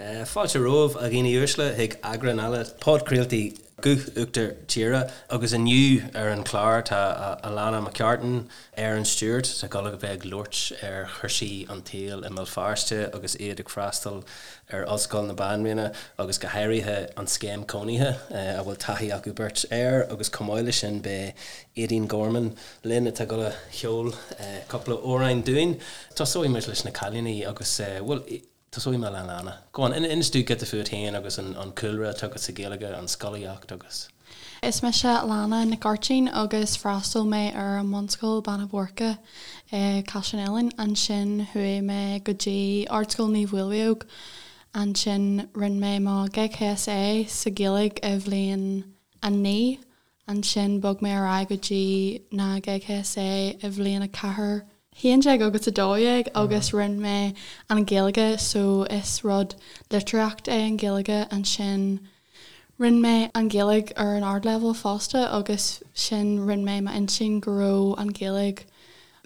Fáilte romhaibh, a dhaoine uaisle, chuig eagrán eile podchraoltaí Guth Uachtar Tíre agus inniu ar an chlár tá Alannah McCartan, Erin Stewart, atá ag dul a bheith ag labhairt ar chúrsaí an tsaoil i mBéal Feirste agus iad ag freastal ar Ollscoil na Banríona agus go háirithe an scéim cónaithe a bhfuil taithí acu beirt air agus chomh maith leis sin beidh Aedín Gorman linn atá ag dul a cheol cúpla amhrán dúinn. Tosóidh muid leis na cailíní agus, bhuel, tosóidh mé le Alannah. Go on, inis dúinn giota fút féin agus an cúlra atá agat sa Ghaeilge, an scolaíocht agus. Is mise Alannah Nic Áirtín agus freastal mé ar an mbunscoil Beanna Boirche i Caiseal an Eiléan. Ansin chuaigh mé go dtí Ardscoil Naomh Mhaolmhaodhóg. Ansin rinne mé mo GCSE sa Ghaeilge i bhliain 9. Ansin bhog mé ar aghaidh go dtí na GCSE i bhliain 4, 11 agus 12 agus rinne mé an Ghaeilge so is rud litríocht é an Ghaeilge. Ansin rinne mé an Ghaeilge ar an ardleibhéal fosta agus sin rinne mé m'intinn go raibh an Ghaeilge,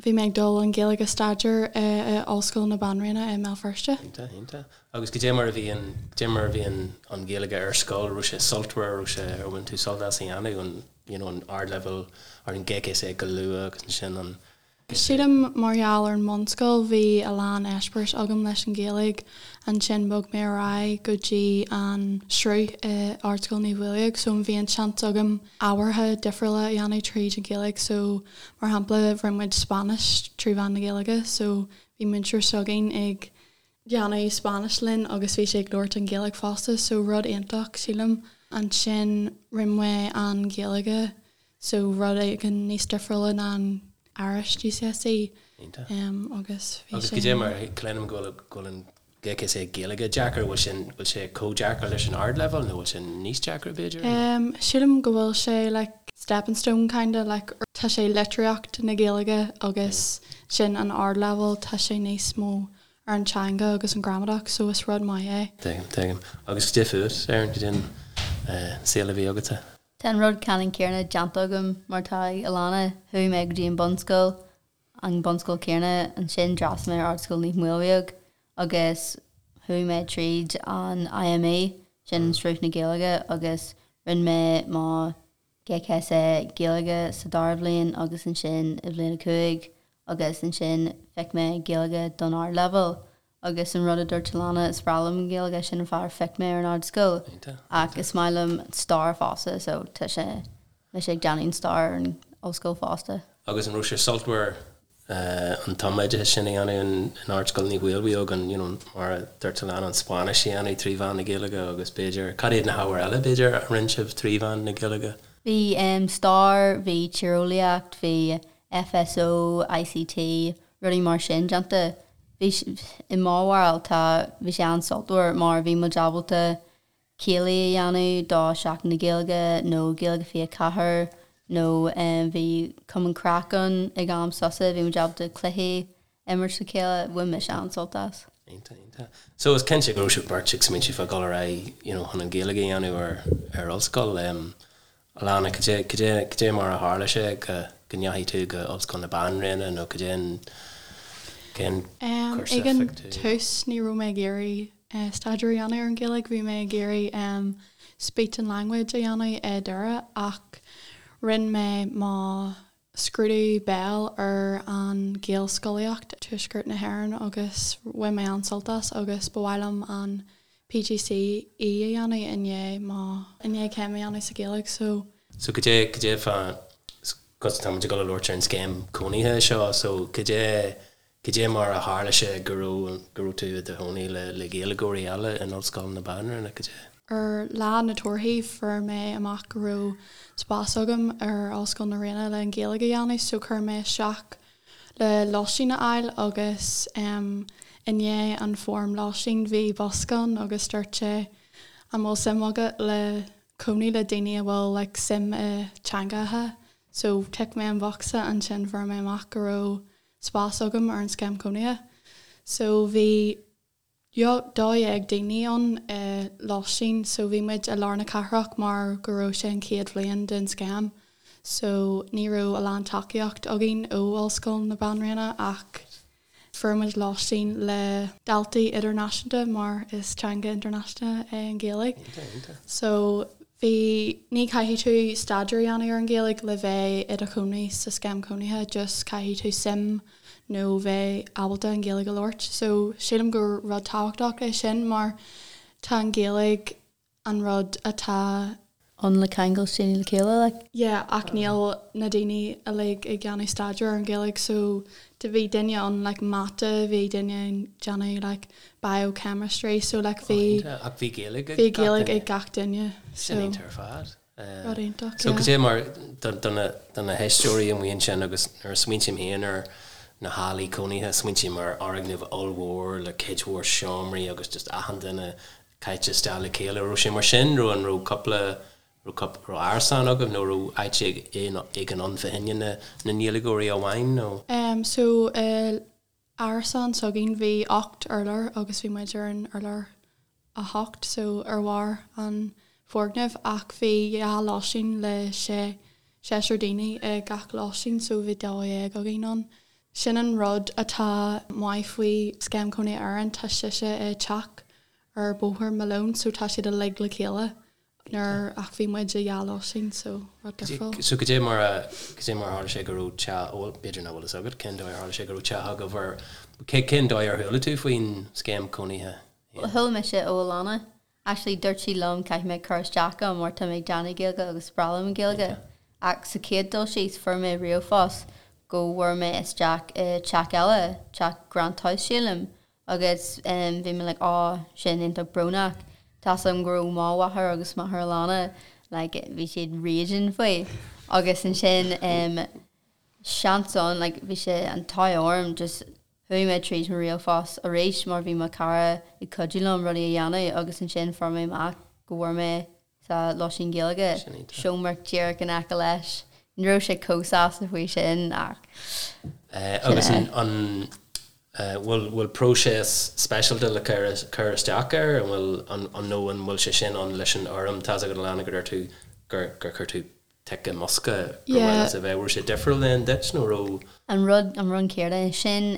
bhí mé ag dul an Ghaeilge a staidéar i Ollscoil na Banríona i mBéal Feirste. Iontach, iontach. Agus goidé mar a bhí an, goidé mar a bhí an, an Ghaeilge ar scoil, raibh sé sultmhar, raibh sé, ar bhain tú sult as a dhéanamh, an, you know, an ardleibhéal ar an GCSE go luath agus ansin an. Sílim mar gheall ar an mbunscoil bhí a lán eispéiris agam leis an Ghaeilge, ansin bhog mé ar aghaidh go dtí an sruth i Ardscoil Naomh Mhaolmhaodhóg so bhí an seans agam ábhartha difriúla a dhéanamh tríd an Ghaeilge so mar shampla rinne muid Spáinnis trí mheán na Gaeilge so bhí múinteoir s'againn ag déanamh Spáinnis linn agus bhí sé ag labhairt an Ghaeilge fosta so rud iontach sílim. Ansin rinne mé an Ghaeilge so rud éigin níos difriúla ná an Irish GCSE Iontach. agus bhí Agus goidé mar cluinim go bhfuil go bhfuil an GCSE Gaeilge deacair, bhfuil sin bhfuil sé chomh deacair leis an ardleibhéal nó bhfuil sé níos deacra b'fhéidir? Sílim go bhfuil sé like stepping stone kinda like tá sé litríocht na Gaeilge agus sin an ardleibhéal tá sé níos mó ar an teanga agus an gramadach so is rud maith é. Tuigim, tuigim. Agus goidé fút, Erin, goidé an saol a bhí agatsa? Tá an rud ceannann céanna déanta agam mar atá ag Alannah. Chuaigh mé go dtí an bunscoil, an bunscoil céanna, ansin d'fhreastail mé ar Ardscoil Naomh Maolmhaodhóg agus chuaigh mé tríd an IME, sin Sruth na Gaeilge, agus rinne mé mo GCSE Gaeilge sa dara bhliain agus ansin i bhliain 5 agus ansin phioc mé Gaeilge don ardleibhéal agus an rud a dúirt Alannah is breá liom an Ghaeilge sin an fáth ar phioc mé ar an ardscoil ach is maith liom stair fosta so tá sé mise ag déanamh an stair ar an ollscoil fosta. Agus an raibh sé sultmhar an tumoideachas sin a dhéanamh in Ardscoil Naomh Mhaolmhaodhóg, an, you know, mar a dúirt Alannah, an Spáinnis a dhéanamh trí mheán na Gaeilge agus b'fhéidir, cad iad na hábhair eile, b'fhéidir, a rinne sibh trí mheán na Gaeilge? Bhí stair, bhí tíreolaíocht, bhí FSO, ICT, rudaí mar sin déanta. Bhí, i mo bharúil, tá, bhí sé an-sultmhar mar bhí muid ábalta céilí a dhéanamh do Seachtain na Gaeilge nó Gaeilge 24 nó bhí Cumann Craic ann ag am sosa, bhí muid ábalta cluichí a imirt le chéile, bhain mise an-sult as. Iontach, iontach. So is cinnte go raibh sibh beirt ag smaointiú fá dhul ar aghaidh you know chun an Ghaeilge a dhéanamh ar ar ollscoil. Um, Alannah, cad é, cad é, cad é mar a tharla sé go go ndeachaigh tú go Ollscoil na Banríona nó cad é an cén cúrsa Ag a an phioc tú? tús ní raibh mé ag iarraidh staidéar a dhéanamh ar an Ghaeilge, bhí mé ag iarraidh Speech and Language a dhéanamh i Doire ach rinne mé mo scrúdú béil ar an Ghaelscolaíocht Tuaisceart na hÉireann agus bhain mé an-sult as agus ba mhaith liom an PGCE a dhéanamh i ndiaidh mo i ndiaidh céim a dhéanamh sa Ghaeilge so. So cad é cad é fá cos tá muid ag dul a labhairt ar an scéim cónaithe seo so cad é Cad é mar a tharla sé go raibh go raibh tú i do chónaí le le Gaeilgeoirí eile in Ollscoil na Banríona? Cad é. Ar lá na torthaí fuair mé amach go raibh spás agam ar Ollscoil na Ríona le an Ghaeilge a dhéanamh so chuir mé isteach le lóistín a fháil agus em i ndiaidh an form lóistín bhí bosca ann agus dúirt sé an bhfuil suim agat le cónaí le daoine a bhfuil like suim i teangacha so tic mé an bhocsa ansin fuair mé amach go raibh spás agam ar an scéim cónaithe. So bhí 12 daoine ann i lóistín so bhí muid i lár na cathrach mar go raibh sé an chéad bhliain den scéim so ní raibh a lán tacaíocht againn ó Ollscoil na Banríona ach. Fuair muid lóistín le daltaí idirnáisiúnta mar is teanga idirnáisiúnta é an Ghaeilge. So bhí, ní caithfidh tú staidéar a dhéanamh ar an Ghaeilge le bheith i do chónaí sa scéim cónaithe, just caithfidh tú suim nó bheith ábalta an Ghaeilge a labhairt. So sílim gur rud tábhachtach é sin mar tá an Ghaeilge an rud atá. ann le ceangal daoine le chéile like. Yeah ach níl na daoine uilig ag déanamh staidéar ar an Ghaeilge so do bhí duine ann like mata, bhí duine ag déanamh like biochemistry so like bhí Ach bhí Gaeilge ag bhí Gaeilge ag gach duine so. Sin iontach ar fad. Rud iontach So yeah. cad é mar do na do na héisteoirí amuigh ansin agus nuair a smaointím féin ar na hallaí cónaithe smaointím ar fhoirgneamh ollmhór le cuid mhór seomraí agus just achan duine caite isteach le chéile. Raibh sé mar sin? Raibh an raibh cúpla raibh cúpla raibh árasán agaibh nó raibh áit éigin ann fá choinne na na nGaeilgeoirí amháin nó? Em so i árasán s'againn bhí 8 urlár agus bhí muid ar an urlár 8 so ar bharr an foirgnimh ach bhí dhá lóistín le sé seisear daoine i gach lóistín so bhí 12 againn ann. Sin an rud atá maith faoi Scéim Cónaithe Éireann, tá sise i teach ar Bhóthar Malone so tá siad uilig le chéile nuair ach bhí muid i dhá lóistín so rud difriúil. So cad é mar a, cad é mar a tharla sé go raibh teach, bhuel b'fhéidir nach bhfuil fhios agat cén dóigh ar tharla sé go raibh teach agaibh ar, cén dóigh ar chuala tú faoin scéim cónaithe? Chuala mise ó Alana Actually dúirt sí liom caithfidh mé cur isteach ann mar tá mé ag déanamh Gaeilge agus is breá liom an Ghaeilge. Ach sa chéad dul síos fuair mé ríomhphost go bhfuair mé isteach i teach eile, teach Grant House sílim, agus bhí mé like oh sin iontach brónach. Tá's agam go raibh mo mháthair agus máthair Alana like bhí siad raging faoi. Agus ansin seans ann like bhí sé an t-ádh orm just Chuaigh mé tríd mo ríomhphost arís mar bhí mo chara ag cuidiú liom rudaí a dhéanamh agus ansin fuair mé amach go bhfuair mé sa lóistín Gaeilge, seomra díreach in aice leis. Ní raibh sé chomh sásta faoi sin ach sin é. Agus an bhfuil bhfuil próiseas speisialta le cur isteach air? An bhfuil an nó an bhfuil sé sin ann leis an fhoirm? Tá's agat Alana go deir tú gur gur chuir tú tic i mbosca gur mhaith leat a bheith. Raibh sé difriúil then duit nó raibh? An rud, an rud céanna sin,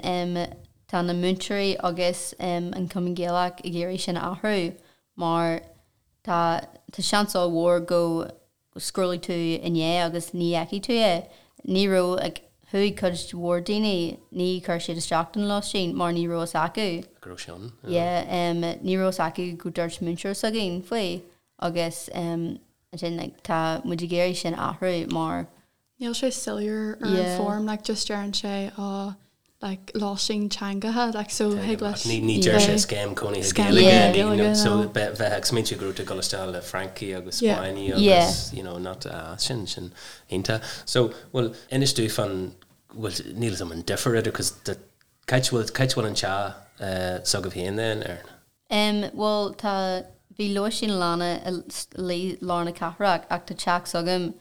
tá na múinteoirí agus an Cumann Gaelach ag iarraidh sin a athrú mar tá, tá seans ollmhór go scrollfaidh tú i ndiaidh agus ní fheicfidh tú é. Ní raibh, like, chuaigh cuid mhór daoine, ní chuir siad isteach don lóistín mar ní raibh fhios acu. Go raibh sé ann. Yeah, ní raibh fhios acu go dúirt múinteoir s'againn faoi agus ansin like tá muid ag iarraidh sin a athrú mar. Níl sé soiléir ar an form like just deireann sé oh like lóistín teangacha like so thig leis Ní ní deir sé scéim cónaithe Gaeilge ní so bheith ag smaointiú go raibh tú ag dul isteach le Francaigh agus Spáinnigh agus you know not ah sin sin iontach. So bhuel inis domh fán bhuel níl 'fhios a'm an difear idir cos cá háit bhfuil cá háit bhfuil an teach s'agaibh féin then Erin? Em, bhuel, tá, bhí lóistín Alana i lár na cathrach ach tá teach s'agam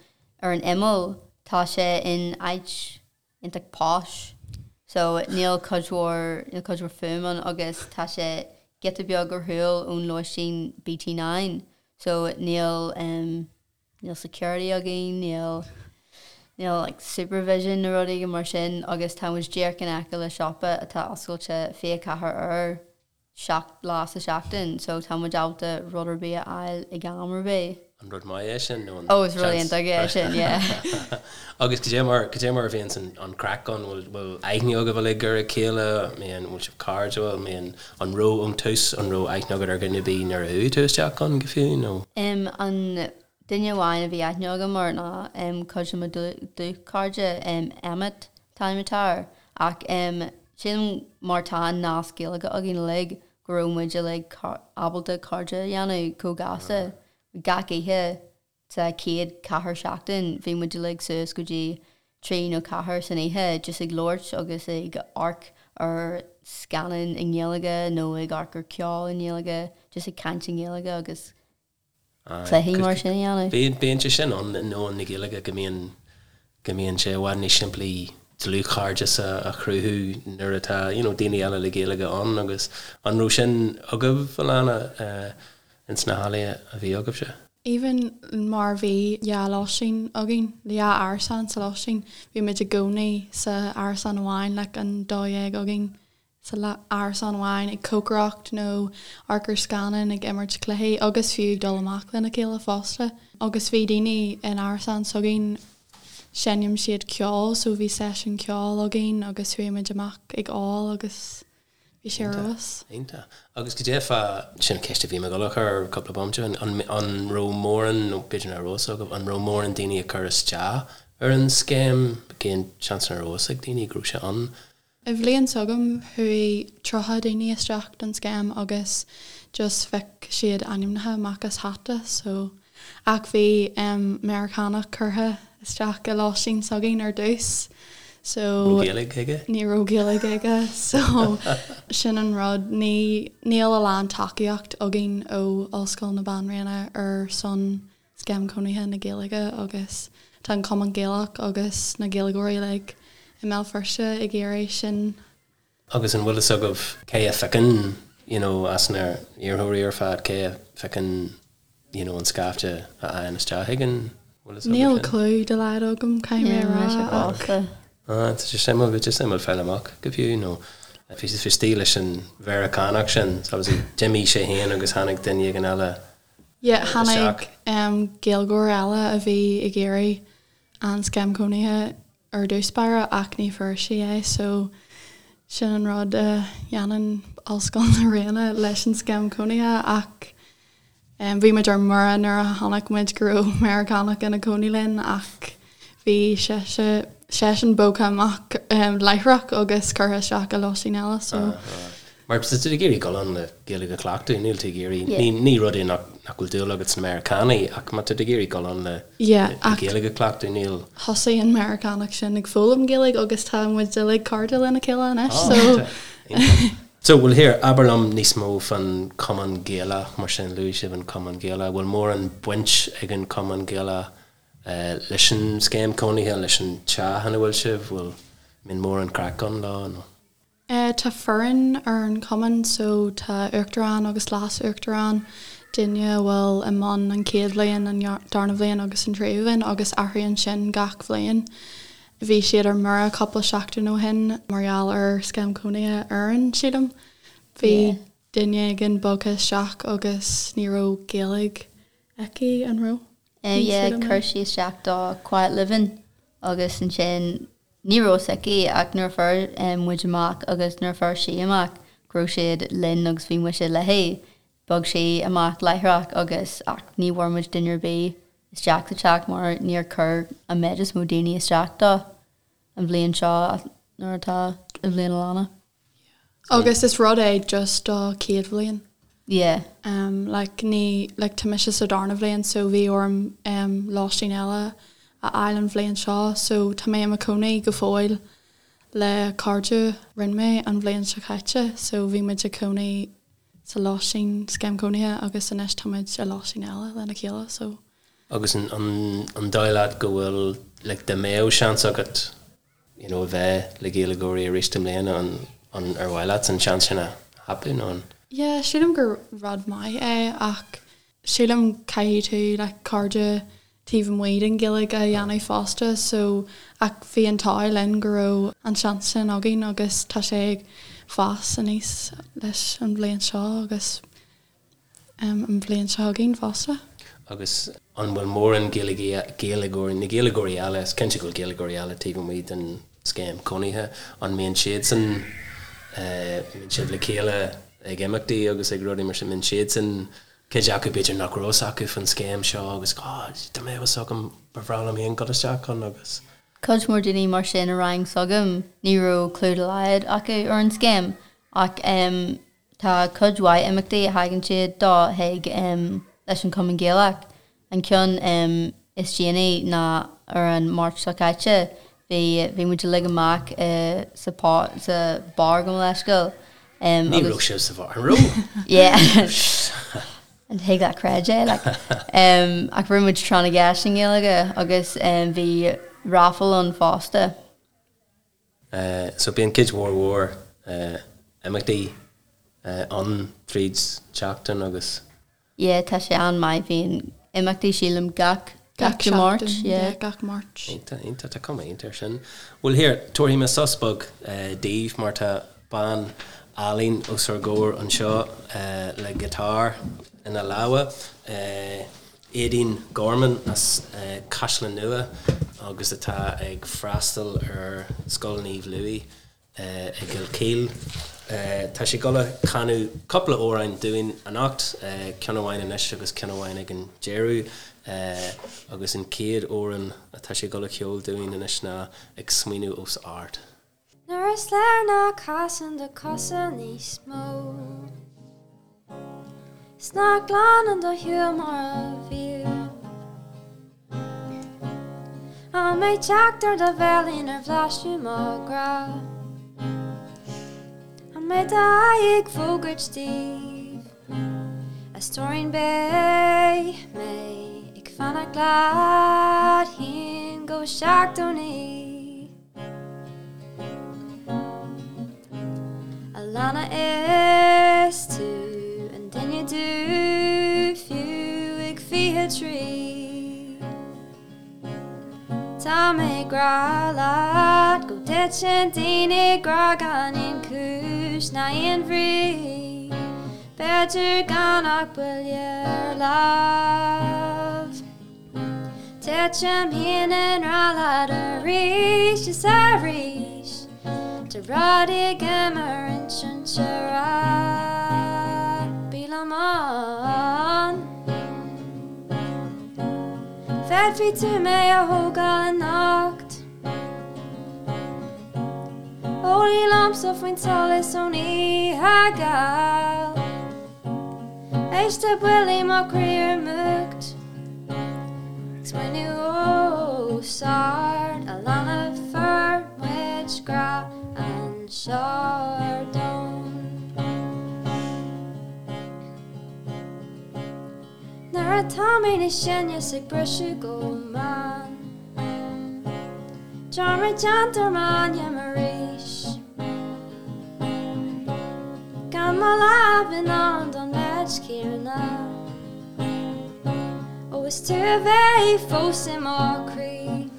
ar an imeall, tá sé in áit iontach posh so níl cuid mhór, níl cuid mhór fuaim ann agus tá sé giota beag ar shiúl ón lóistín BT9 so níl, em, níl security againn, níl, níl like supervision nó rud éigin mar sin agus tá muid díreach in aice le siopa atá oscailte 24 uair 7 lá sa seachtain so tá muid ábalta rud ar bith a fháil ag am ar bith. An rud maith é sin nó an Oh is rud iontach é sin yeah. Agus cad é mar cad é mar a bhíonns an an craic ann bhfuil bhfuil aithne agaibh uilig ar a chéile I mean bhfuil sibh cairdiúil I mean an raibh ón tús an raibh aithne agat ar dhuine ar bith nuair a chuaigh tú isteach ann go fiú nó? Em an duine amháin a bhí aithne agam air ná em cuid de mo dlúthchairde em Emmet an t-ainm atá air Ach sílim mar tá an nasc Gaeilge againn uilig go raibh muid uilig ábalta cairde a dhéanamh chomh gasta. Gach oíche sa chéad ceathair seachtain bhí muid uilig suas go dtí trí nó ceathair san oíche just ag labhairt agus ag amharc ar scannáin i nGaeilge nó ag amharc ar ceol i nGaeilge, just ag caint i nGaeilge agus cluichí mar sin a dhéanamh. Bíonn, bíonn sé sin ann i ndomhan na Gaeilge go mbíonn, go mbíonn sé i bhfad níos simplí dlúthchairdeas a, a chruthú nuair atá, you know, daoine eile le Gaeilge ann agus an raibh sin agaibh, Alana, ins na hallaí a bhí agaibhse? Even mar bhí dhá lóistín againn, dhá árasán sa lóistín, bhí muid i gcónaí sa árasán amháin, like an 12 againn. Sa árasán amháin ag cócaireacht nó amharc ar scannán ag imirt cluichí agus fiú ag dul amach lena chéile fosta. Agus bhí daoine in árasán s'againn, seinneann siad ceol so bhí seisiún ceoil againn agus chuaigh muid amach ag ól agus bhí sé ar fheabhas. Iontach. Agus cad é fá, sin ceist a bhí mé ag dul a chur cúpla bomaite ó shin, an raibh mórán, nó b'fhéidir nach raibh fhios agaibh, an raibh mórán daoine ag cur isteach ar an scéim? Cén seans nach raibh fhios ag daoine go raibh sé ann? I bhliain s'agam chuaigh 30 daoine isteach don scéim agus just phioc siad ainmneacha amach as hata so ach bhí Meiriceánach curtha isteach i lóistín s'againn ar dtús so Raibh Gaeilge aige? Ní raibh Gaeilge aige so sin an rud ní níl a lán tacaíocht againn ó Ollscoil na Banríona ar son Scéim Cónaithe na Gaeilge agus tá an Cumann Gaelach agus na Gaeilgeoirí uilig i mBéal Feirste ag iarraidh sin. Agus an bhfuil fhios agaibh cé a phiocann you know as na iarrthóirí ar fad, cé a phiocann you know an scaifte a fhaigheann isteach ag an, bhfuil fhios agaibh Níl sin? clue dá laghad agam, caithfidh mé a rá, ach. Ah, tá sé suimiúil, bhí sé suimiúil fáil amach go fiú nó bhí sé istigh leis an Mheiriceánach sin, so obviously d'imigh sé féin agus tháinig duine éigin eile Yeah, tháinig Gaeilgeoir eile a bhí ag iarraidh an Scéim Cónaithe ar dtús báire ach ní fuair sí é so sin an rud a dhéanann Ollscoil na Ríona leis an Scéim Cónaithe ach bhí muid ar mire nuair a chonaic muid go raibh Meiriceánach ina cónaí linn ach bhí sise seisean bogtha amach láithreach agus curtha isteach i lóistín eile so. Mar tá tú ag iarraidh dul ann le Gaeilge a chleachtadh, níl tú ag iarraidh, ní ní rud é nach nach bhfuil dúil agat sna Meiriceánaigh ach má tá tú ag iarraidh dul ann le le Gaeilge a chleachtadh, níl. Thosaigh an Meiriceánach sin ag foghlaim Gaeilge agus tá muid uilig cairde lena chéile anois so. So, bhuel here, abair liom níos mó fán Chumann Gaelach mar sin, luaigh sibh an Cumann Gaelach, bhfuil mórán baint ag an Chumann Gaelach leis an scéim cónaithe, leis an teach ina bhfuil sibh, bhfuil, mbíonn mórán craic ann leo nó? Tá foireann ar an chumann so tá uachtarán agus leas-uachtarán, duine a bhfuil i mbun an chéad bhliain, an darna bhliain agus an tríú bhliain agus athraíonn sin gach bhliain. Bhí siad ar mire cúpla seachtain ó shin mar gheall ar scéim cónaithe Éireann, sílim. Bhí duine éigin bogtha isteach agus ní raibh Gaeilge aici, an raibh? Yeah, chuir sí isteach do Quiet Living agus ansin ní raibh fhios aici ach nuair a fuair muid amach agus nuair a fuair sí amach go raibh siad linn agus bhí muise léi, bhog sí amach láithreach agus ach ní bhfuair muid duine ar bith isteach sa teach mar níor chuir an méid is mó daoine isteach dó an bhliain seo nuair atá i bhliain Alana. Agus is rud é just do chéad bhliain. Yeah. Um like ní like tá mise sa darna bhliain so bhí orm um lóistín eile a fháil an bhliain seo so tá mé i mo chónaí go fóill le cairde rinne mé an bhliain seo caite so bhí muid ag cónaí sa lóistín scéim cónaithe agus anois tá muid i lóistín eile lena chéile so. Agus an an an dóigh leat go bhfuil like dá mbeadh seans agat you know a bheith le Gaeilgeoirí arís i mbliana, an an ar mhaith leat an seans sin a thapú nó an. Yeah, sílim gur rud maith é ach sílim caithfidh tú like cairde taobh amuigh den Ghaeilge a dhéanamh fosta so ach bhí an t-ádh linn go raibh an seans sin againn agus tá sé ag fás aníos leis an bhliain seo agus an bhliain seo chugainn fosta. Agus an bhfuil mórán Gaeilgeoirí, na Gaeilgeoirí eile, is cinnte go bhfuil Gaeilgeoirí eile taobh amuigh den scéim cónaithe, an mbíonn siadsan, mbíonn sibh le chéile ag imeachtaí agus ag rudaí mar sin, mbíonn siadsan, cuid acu b'fhéidir nach raibh fhios acu faoin scéim seo agus oh dá mbeadh fhios agam ba bhreá liom féin dul isteach ann agus. Cuid mhór daoine mar sin i rang s'agam, ní raibh clue dá laghad acu ar an scéim ach Tá cuid mhaith imeachtaí a thagann siad dó chuig leis an Chumann Gaelach. An ceann is déanaí ná ar an Máirt seo caite. Bhí bhí muid uilig amach sa sa bar gabh mo leithscéal. Ní raibh sibh sa bheár, an raibh? Yeah. An thig leat creid é like. Ach rinne muid tráth na gceist i nGaeilge agus bhí raffle ann fosta. So bíonn cuid mhór mhór imeachtaí ann tríd tseachtain agus. Yeah tá sé an-maith, bíonn imeachtaí sílim gach gach Dé Máirt, yeah. Gach Máirt. Iontach, iontach, tá cuma iontach air sin. Bhuel here, tabharfaidh mé sos beag daoibh mar tá. bean álainn os ár gcomhair anseo le giotár ina lámha, Aedín Gorman as Caisleán Nua agus atá ag freastal ar Scoil Naomh Louis i gCill Chaoil. Tá sí ag dul a chanadh cúpla amhrán dúinn anocht, ceann amháin anois agus ceann amháin ag an deireadh, agus an chéad amhrán atá sí ag dul a cheol dúinn anois ná Ag Smaoineamh Os Ard. Nuair is léir nach casann do chosa níos mó 'S nach glanann do shúil mar a bhíodh An mbeidh teacht ar do bhéilín ar bhlaiseadh mo ghrá An mbeidh d'aghaidh ag fógairt daoibh A stóirín beidh mé ag fanacht leat féin go 79. Alannah is tú an duine dubh fiú ag 23 Tá mé ag grá leat go dtiteann daoine i ngrá gan aon chúis ná aon bhrí B'fhéidir gan ach buille ar lámh. Titim féin i ngrá leat arís is arís Tá rudaí agam ar insint a rá Bí liom ann Féadfaidh tú mé a thógáil anocht Ó luí liomsa faoin tsolas ón oíche gheal Éist le buillí mo chroí ar múcht Ag smaoineamh os ard Alannah fuair muid grá anseo ar domhan Nuair atá mé níos sine 's ag briseadh go mall Dearmad déanta ar m'ainm arís. Gan mo lámh in ann don méid céanna. Ó is tú a bheidh fós i mo chroí.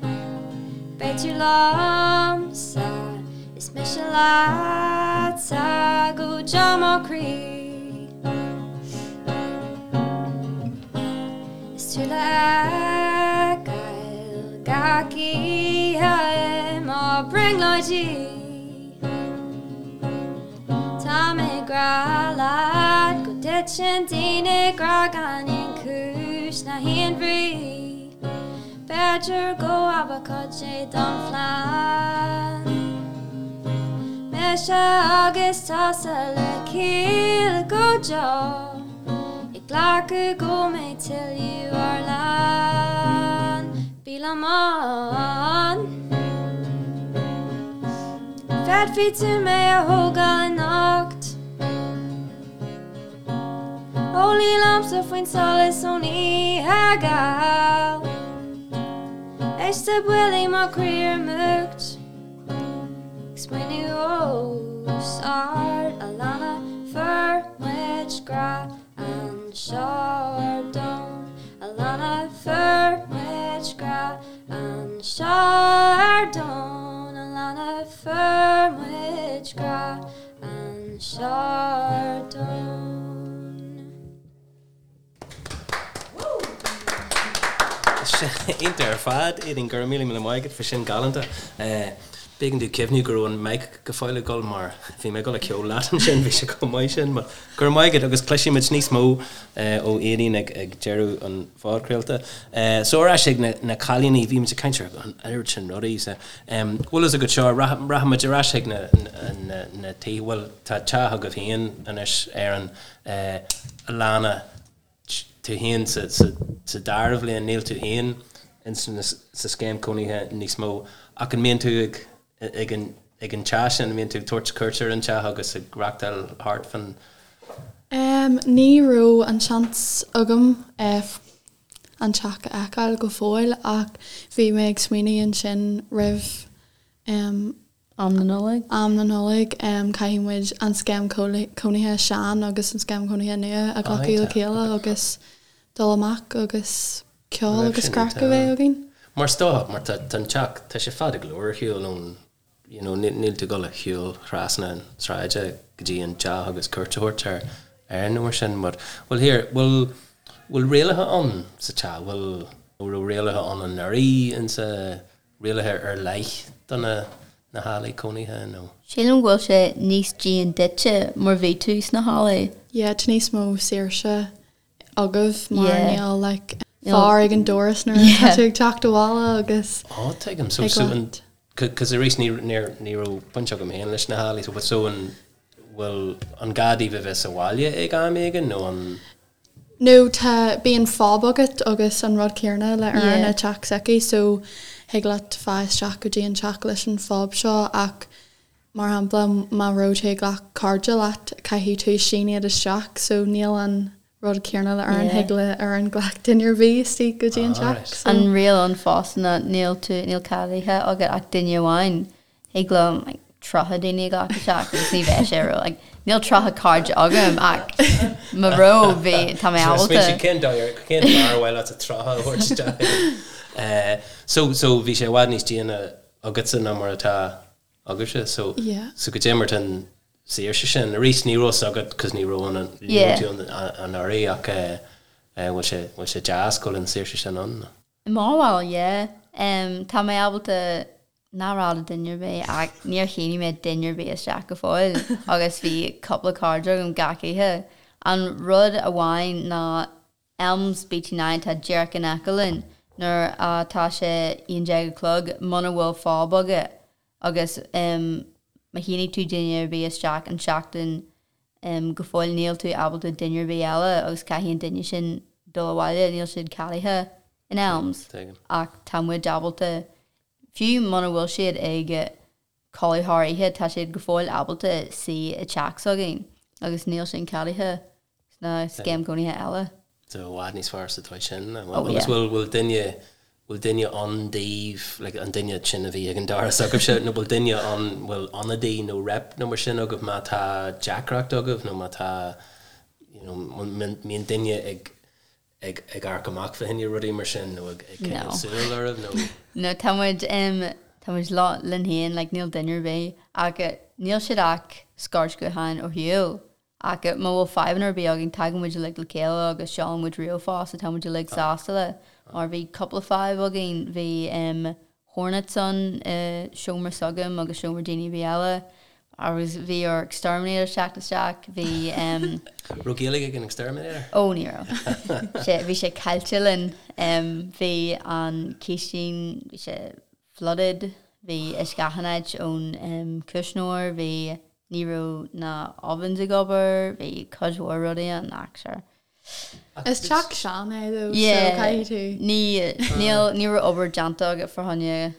Beidh tú liomsa is mise leatsa go deo mo chroí. Is tú le feiceáil gach oíche i mo bhrionglóidí. Tá mé ag grá leat go dtiteann daoine i ngrá gan aon chúis ná haon bhrí. B'fhéidir go ab cuid é don phlean. Mise agus tusa le chéile go deo ag glacadh go mbeidh tuilleadh ár lán. Bí liom ann. Féadfaidh tú mé a thógáil anocht. Ó luí liomsa faoin solas ón oíche gheal Éist le buillí mo chroí ar múcht Ag smaoineamh os ard Alannah fuair muid grá anseo ar domhan Alannah fuair muid grá anseo ar domhan Alannah fuair muid grá Anseo ar domhan. Iontach ar fad, Aedín, go raibh míle míle maith agat, bhí sin galánta. B'éigean domh cuimhniú go raibh an mic go fóill ag dul mar bhí mé ag dul a ceol leat ansin, bhí sé chomh maith sin. But go raibh maith agat agus cloisfidh muid níos mó ó Aedín ag deireadh an phodchraolta. So ar ais ag na cailíní, bhí muid ag caint ar an oiread sin rudaí. Bhfuil fhios agat seo, rachaidh muid ar ais chuig na tithe, bhuel tá teach agaibh féin anois ar an Alannah, tú féin sa dara bhliain, níl tú féin sa scéim cónaithe níos mó ach an mbíonn tú ag ag an ag an teach sin, an mbíonn tú ag tabhairt cuairt ar an teach agus ag reachtáil thart fan? Ní raibh an seans agam an teach a fheiceáil go fóill ach bhí mé ag smaoineamh ansin roimh am na Nollag. am na Nollag caithfidh muid an scéim cónaithe sean agus an scéim cónaithe nua a ghlacadh le chéile agus dul amach agus ceol agus craic a bheith againn. Mar is dócha, mar tá an teach, tá sé fada go leor ar shiúl ón. you know, níl tú ag dul a shiúl trasna an tsráide go dtí an teach agus cuairt a thabhairt ar Erin nó mar sin. But, well here, bhfuil, bhfuil rialacha ann sa teach? Bhfuil, raibh rialacha ann anuraidh insa, rialacha ar leith do na, na hallaí cónaithe nó? Sílim go bhfuil sé níos dian duitse mar bhí tú sna hallaí. Yeah, tá níos mó saoirse agaibh mar níl like fear ag an doras nuair atá tú ag teacht abhaile agus Ó tuigim so so an cos arís ní níor ní raibh baint agam féin leis na hallaí so but so an bhfuil an gá daoibh a bheith sa bhaile ag am éigin nó an No tá bíonn fob agat agus an rud céanna le Erin i teach s'aici so thig leat fáil isteach go dtí an teach leis an fob seo ach mar shampla má raibh tú ag glac cairde leat caithfidh tú sín iad isteach so níl an rud céanna le Erin, thig le Erin glac duine ar bith istigh go dtí an teach so. An riail ann fosta ná níl tú, níl ceadaithe agat ach duine amháin. Thig liom like 30 daoine a ghlacadh isteach agus ní bheidh sé ró like níl 30 cairde agam ach má raibh bhí tá mé ábalta. Cén dóigh ar cén fear ar mhaith leat 30 a thabhairt isteach? So so bhí sé i bhfad níos déine agatsa ná mar atá agaibhse so Yeah. so goidé mar tá an saoirse sin arís ní raibh fhios agat cos ní raibh an ní Yeah. raibh tú ann anuraidh ach eh eh bhfuil sé bhfuil sé deas go bhfuil an saoirse sin ann? I mo bharúil yeah. Em tá mé ábalta ná rá le duine ar bith ach níor shínigh mé duine ar bith isteach go fóill agus bhí cúpla cairde agam gach oíche. An rud amháin ná Elms BT9 tá díreach in aice linn nuair atá sé 11 a chlog muna bhfuil fob agat agus má shínigh tú duine ar bith isteach an seachtain go fóill níl tú ábalta duine ar bith eile agus caithfidh an duine sin dul abhaile níl siad ceadaithe in Elms ach tá muid ábalta fiú muna bhfuil siad ag codladh thar oíche, tá siad go fóill ábalta suí i teach s'againn agus níl sin ceadaithe sna scéim cónaithe eile. So i bhfad níos fearr sa dóigh sin. Oh Agus yeah. bhfuil bhfuil duine bhfuil duine ann daoibh like an duine sin a bhí ag an doras agaibhse nó bhfuil duine ann bhfuil ionadaí nó rep nó mar sin agaibh má tá deacracht agaibh nó má tá you know mbíonn duine ag ag ag amharc amach fá choinne rudaí mar sin nó ag ag No. coinneáil súil oraibh nó? No, tá muid em tá muid linn féin like níl duine ar bith ach níl siad ach scairt ghutháin ó shiúl ach má bhfuil fadhbanna ar bith againn tagann muid uilig le chéile agus seolann muid ríomhphost so tá muid uilig sásta le mar bhí cúpla fadhb againn bhí em hornets ann i seomra s'agam agus seomra daoine ar bith eile agus bhí ár exterminator teacht isteach, bhí em. Raibh Gaeilge ag an exterminator? Ó ní raibh. Sé bhí sé caillte linn. Em bhí an chistin, bhí sé flooded, bhí uisce achan áit ón em cuisneoir, bhí ní raibh na ovens ag obair, bhí cuid mhór rudaí ann ach sure. Is teach sean é though so Yeah, caithfidh tú. ní níl ní raibh obair déanta agat fá choinne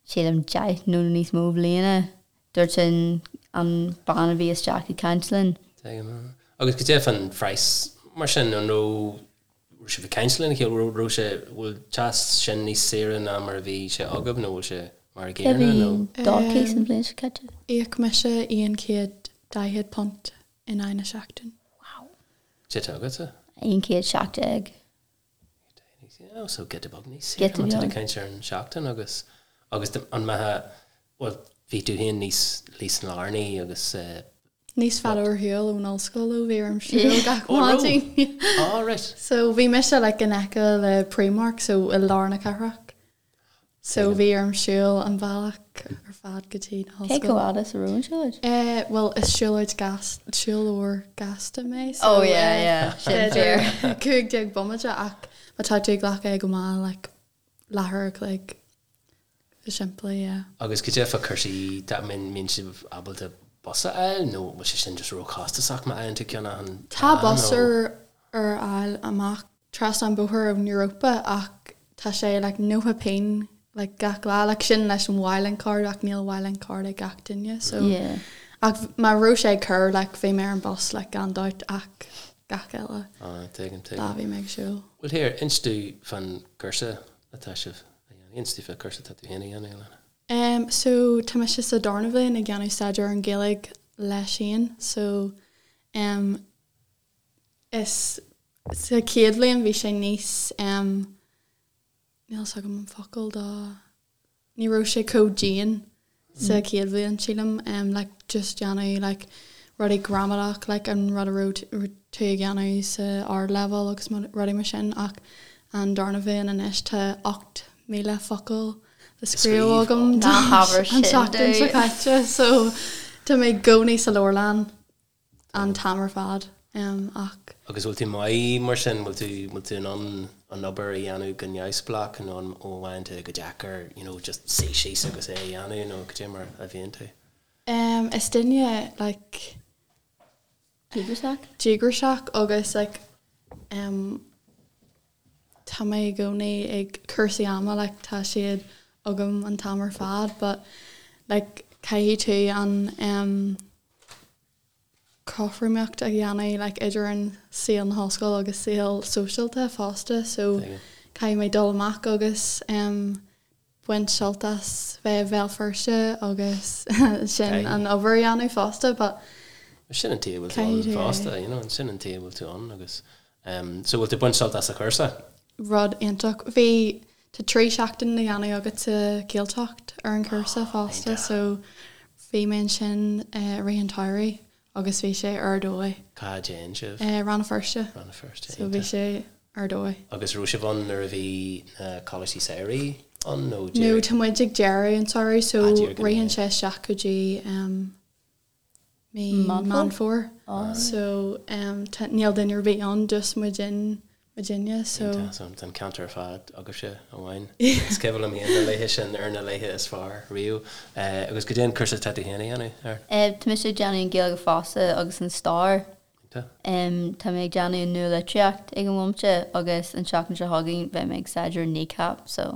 sílim 10 nó níos mó bliana, dúirt an an bean a bhí isteach ag caint linn. Tuigim. Agus goidé fán phraghas mar sin, an raibh raibh sibh ag caint lena chéile, raibh raibh sé bhfuil teach sin níos saoire ná mar a bhí sé agaibh nó bhfuil sé mar a Cé gcéanna bhí nó? do cíos an bhliain seo caite? Íoc mise £140 in aghaidh na seachtain. Wow. Cé tá agatsa? 117. Oh, so giota beag níos Giota saoire má tá tú ag beag. caint ar an seachtain agus agus an mbeadh bhuel bhí tú féin níos níos lárnaí agus eh, Níos fada ar shiúl ón ollscoil ó bhí orm siúl gach Oh, raibh? maidin. Oh, right. So bhí mise like in aice le Primark so i lár na cathrach. So bhí orm siúl an bealach ar fad go dtí na Cé hollscoil. chomh fada is a raibh an siúlóid? Eh, bhuel is siúlóid gas, siúlóir gasta mé so Oh yeah, eh, yeah, sin b'fhéidir fíor. 15 bomaite ach má tá tú ag glacadh é go mall like leathuair a chloig go simplí, yeah. Agus goidé fá cúrsaí dá mbíonn sibh ábalta bus a fháil nó bhfuil sé sin just róchostasach má fhaigheann tú ceann achan Tá lá bus nó? ar ar fháil amach trasna an bóthar ón Europa ach tá sé like 90 pingin like gach lá like sin leis an Mylink card ach níl Mylink card ag gach duine so Yeah. ach má raibh sé ag cur like bhí mé ar an bus like gan dabht ach gach eile Ah, tuigim, lá tuigim. bhí mé ag siúl. Well here, inis domh fán gcúrsa atá sibh a dhéanamh. Inis domh fán cúrsa atá tú féin a dhéanamh, Alana. Um, so tá mise sa darna bhliain ag déanamh staidéar ar an Ghaeilge leis féin so um, Is sa chéad bhliain bhí sé níos em níl 's agam an focal do ní raibh sé chomh dian. sa chéad bhliain sílim um like just déanamh like rudaí gramadach like an rud a raibh tú ag déanamh sa ardleibhéal agus rudaí mar sin ach an darna bhliain anois tá 8,000 focal le scríobh agam Ná habair an sin tseachtain seo domh. caite so tá mé i gcónaí sa leabharlann an t-am ar fad ach. Agus bhfuil tú maith mar sin, bhfuil tú, bhfuil tú in ann an obair a dhéanamh go neamhspleách nó an bhfaigheann tú go deacair you know just suí síos agus é a dhéanamh nó cad é mar a bhíonn tú? Is duine like. Díograiseach? Díograiseach agus like tá mé i gcónaí ag cúrsaí ama like tá siad agam an t-am ar fad but like caithfidh tú an cothromaíocht a dhéanamh like idir an saol na hollscoile agus saol sóisialta fosta so caithfidh mé dul amach agus em baint sult as bheith i Bhéal Feirste agus sin an obair a dhéanamh fosta but Sin an tuige a bhfuil tú ann fosta you know sin an tuige a bhfuil tú ann agus em so bhfuil tú ag baint sult as an chúrsa? Rud iontach. Bhí tá 3 seachtain le dhéanamh agat sa Ghaeltacht ar an chúrsa fosta so bhí mé ansin i rith an tsamhraidh agus bhí sé ar dóigh. Cá dtéann sibh? Rann na Feirste. Rann na Feirste, So bhí sé ar dóigh. Agus raibh sibh ann nuair a bhí na coláistí samhraidh ann nó No, tá muid ag deireadh an tsamhraidh so ritheann sé isteach go dtí mí Meán Fómhair so níl duine ar bith ann just muid muidinne so. Iontach, so tá an ceantar ar fad agaibhse amháin. Is cuimhin liom féin na laethe sin ar na laethe is fearr riamh. Agus cad é an cúrsa atá tú féin a dhéanamh, Erin? Tá mise ag déanamh an Ghaeilge fosta agus an Stair. Iontach. Tá mé ag déanamh an Nualitríocht ag an bhomaite agus an tseachtain seo chugainn beidh mé ag staidéar Kneecap so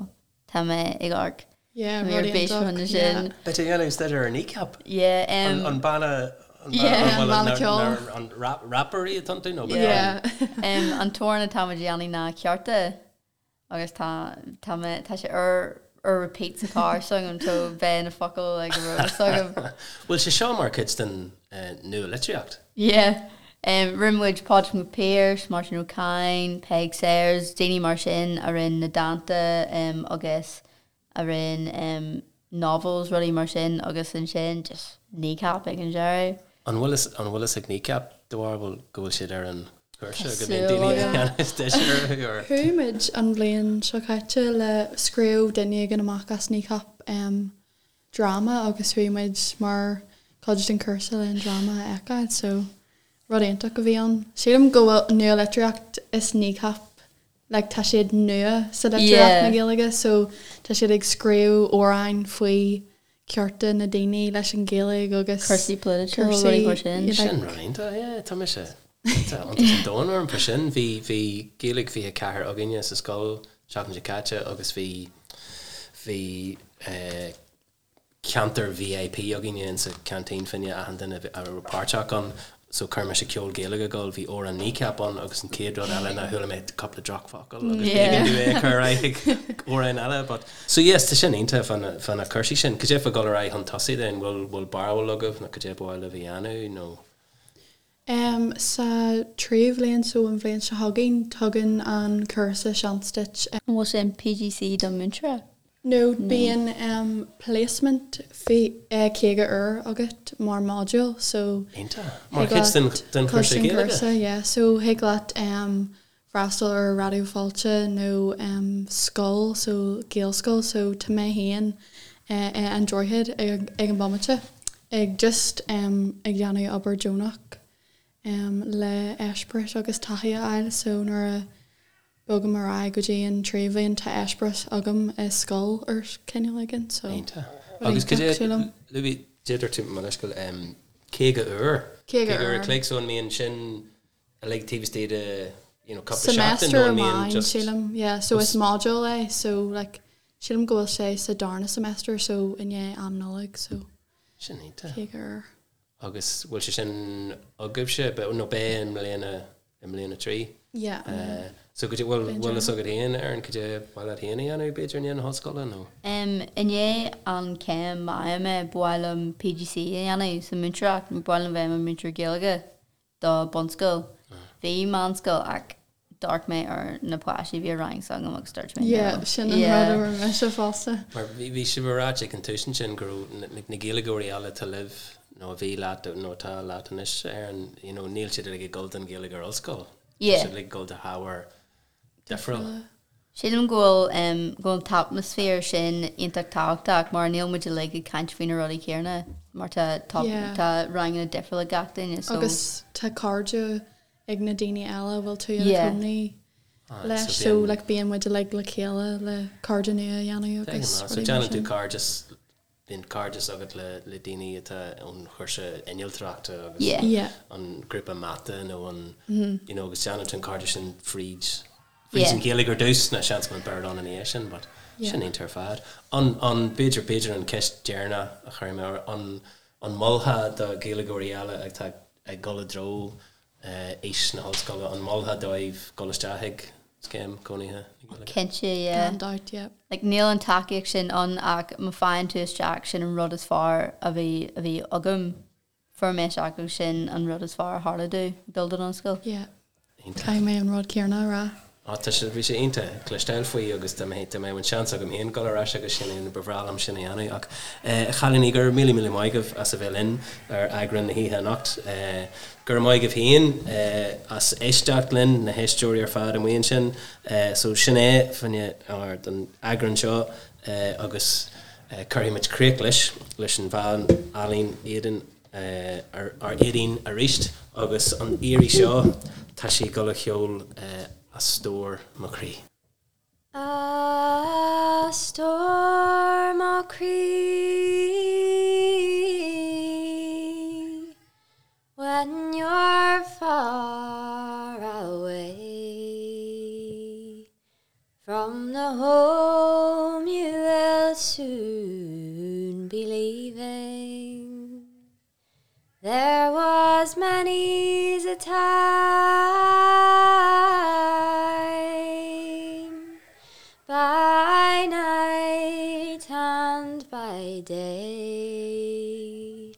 Tá mé ag amharc. Yeah, Tá mé ar rud bís iontach, fá yeah. sin. Beidh tú ag déanamh staidéar ar Kneecap? Yeah, em. An banna, an banna, Yeah. an Banna ceoil. an rap, rapairí atá iontu nó? Yeah. Yeah. Em, an t-amhrán atá muid a dhéanamh ná Cearta agus tá, tá mé, tá sé ar, ar repeat sa charr s'agam so beidh na focail ag an raibh s'agam. Bhfuil sé seo mar chuid den nua-litríocht? Yeah. Em, rinne muid Pádraig Mac Piarais, Máirtín Ó Cadhain, Peig Sayers, daoine mar sin a rinne na dánta em agus a rinne em novels, rudaí mar sin agus ansin just Kneecap ag an deireadh. An bhfuil fhios, an bhfuil fhios ag Kneecap do bharúil go bhfuil siad ar an chúrsa, Tá go mbíonn súil daoine ag agam. déanamh staidéar orthu or? Chuaigh muid an bhliain seo caite le scríobh duine éigin amach as Kneecap em dráma agus chuaigh muid mar chuid den chúrsa le an dráma a fheiceáil so rud iontach a bhí ann. Sílim go bhfuil nua-litríocht is Kneecap like tá siad nua sa litríocht na Gaeilge so tá siad ag scríobh amhráin faoi cearta na daoine leis an Ghaeilge agus Cúrsaí polaitiúil, rudaí mar sin. Sin rud iontach, yeah, tá mise tá iontas an domhain orm faoi sin. Bhí bhí Gaeilge 24 againne sa scoil seachtain seo caite agus bhí bhí ceantar VIP againne insa canteen fá choinne achan duine a raibh páirteach ann so chuir mise ceol Gaeilge ag dul, bhí amhrán Kneecap ann agus an chéad rud eile ná chuala mé cúpla drochfhocal agus b'éigean domh é a chur ar aghaidh ag amhrán eile but so yes tá sin iontach fá na fá na cúrsaí sin. Cad é fá dhul ar aghaidh chun tosaigh then, bhfuil bhfuil barúil agaibh nó cad é ba mhaith libh a dhéanamh nó? Em sa tríú bhliain so an bhliain seo chugainn tugann an cúrsa seans duit An bhfuil sé an PGCE don múinteoir? No, bíonn placement 50 uair agat mar module so Iontach. Mar chuid den den chúrsa Gaeilge? Yeah, so thig leat freastal ar Raidió Fáilte nó scoil so Gaelscoil so tá mé féin i An Droichead ag an bomaite ag just ag déanamh obair deonach le eispéireas agus taithí a fháil so nuair a Bogaim ar aghaidh go dtí an tríú bhliain, tá eispéireas agam i scoil ar chineál éigin so Iontach. Agus cad é, luaigh, dúirt tú, mo leithscéal, 50 uair? 50 uair. An chloig, so an mbíonn sin uilig taobh istigh de, you know, cúpla seachtain Semester nó an mbíonn amháin, just. sílim, yeah, so is module é, so like sílim go bhfuil sé sa darna semester so i ndiaidh am Nollag so Sin iontach. 50 uair. Agus bhfuil sé sin agaibhse, nó beidh i mbliana i mbliain a 3. Yeah. So cad é, bhfuil, bhfuil fhios agat féin, Erin, cad é ba mhaith leat féin a dhéanamh, b'fhéidir, i ndiaidh na hollscoile, nó? Em, i ndiaidh an chéim má fhaighim é, ba mhaith liom PGCE a dhéanamh sa múinteoireacht, ba mhaith liom bheith i mo mhúinteoir Gaeilge do bunscoil. Bhí meánscoil ach d'amharc mé ar na páistí a bhí i rang s'agam agus dúirt mé Yeah, no. sin an rud a rinne mise fosta. Mar bhí sibh ag ráit ag an tús ansin go raibh na Gaeilgeoirí eile atá libh nó a bhí leat nó atá leat anois ar an, you know, níl siad uilig ag dul don Ghaeilge ar ollscoil. Yeah. Tá siad uilig ag dul do hábhair difriúla. Sílim go bhfuil go bhfuil an t-atmaisféar sin iontach tábhachtach mar níl muid uilig ag caint faoi na rudaí céanna mar tá tá tá ranganna difriúla ag gach duine so. Agus tá cairde ag na daoine eile a bhfuil tú ina cónaí leis so like bíonn muid uilig le chéile le cairde nua a dhéanamh agus rudaí mar sin. So déanann tú cairdeas Bíonn cairdeas agat le daoine atá ón chúrsa innealtóireachta agus an grúpa mata nó an, you know, agus déanann tú an cairdeas sin fríd, fríd an Ghaeilge ar dtús, nó seans go mbeidh Béarla ann ina dhiaidh sin, but sin iontach ar fad. An, an, b'fhéidir, b'fhéidir an ceist deireanach a chuirfidh mé ort, an, an molfá do Ghaeilgeoirí eile atá ag dul i dtreo aois na hollscoile, an molfá dóibh dul isteach ag scéim cónaithe na Gaeilge? Cinnte, yeah. Gan dabht, yeah. Like, níl an tacaíocht sin ann ach má faigheann tú isteach, sin an rud is fearr a bhí, a bhí agam. Fuair mé isteach agus sin an rud is fearr a tharla domh, dul don ollscoil. Yeah. Caithfidh mé an rud céanna a rá. Á, tá sé, bhí sé iontach cloisteáil faoi agus dá mbeadh, dá mbeadh an seans agam féin dul ar ais agus sin é, ba bhreá liom sin a dhéanamh. Ach, a chailíní, go raibh míle míle maith agaibh as a bheith linn ar eagrán na hoíche anocht. Go raibh maith agaibh féin as éisteacht linn, na héisteoirí ar fad amuigh ansin. So sin é fá choinne don eagrán seo agus cuirfidh muid críoch leis, leis an bhean álainn Éadaoin. ar Éadaoin arís agus an iarraidh seo tá sí ag dul a cheol A Stór Mo Chroí. A stór mo chroí When you're far away From the home you will soon be leaving There was many's a time By night and by day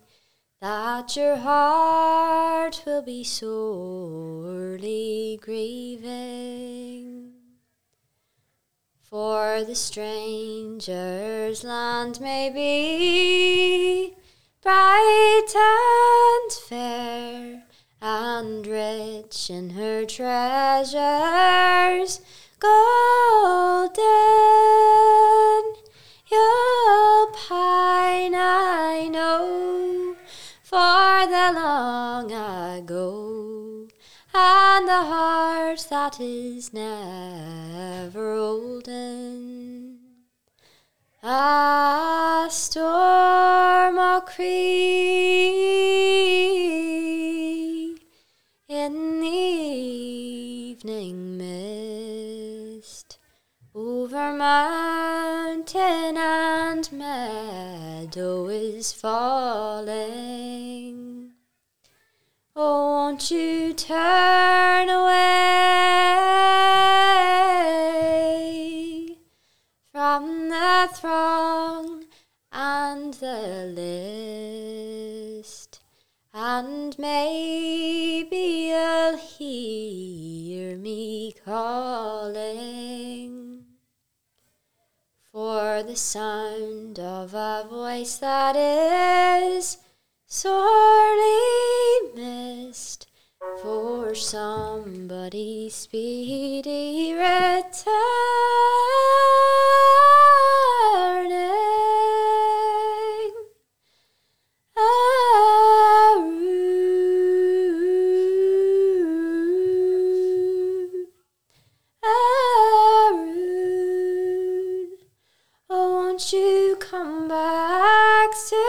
That your heart will be sorely grieving For the stranger's land may be Bright and fair and rich in her treasures golden You'll pine, I know, for the long ago And the heart that is never olden. A stór mo chroí in the evening mist Over mountain and meadow is falling Oh won't you turn away From the throng and the list And maybe you'll hear me calling For the sound of a voice that is sorely missed For somebody speedy returning. Arún, Arún, oh won't you come back soon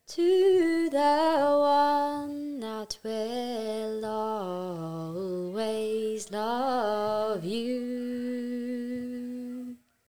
To the one that will always love you.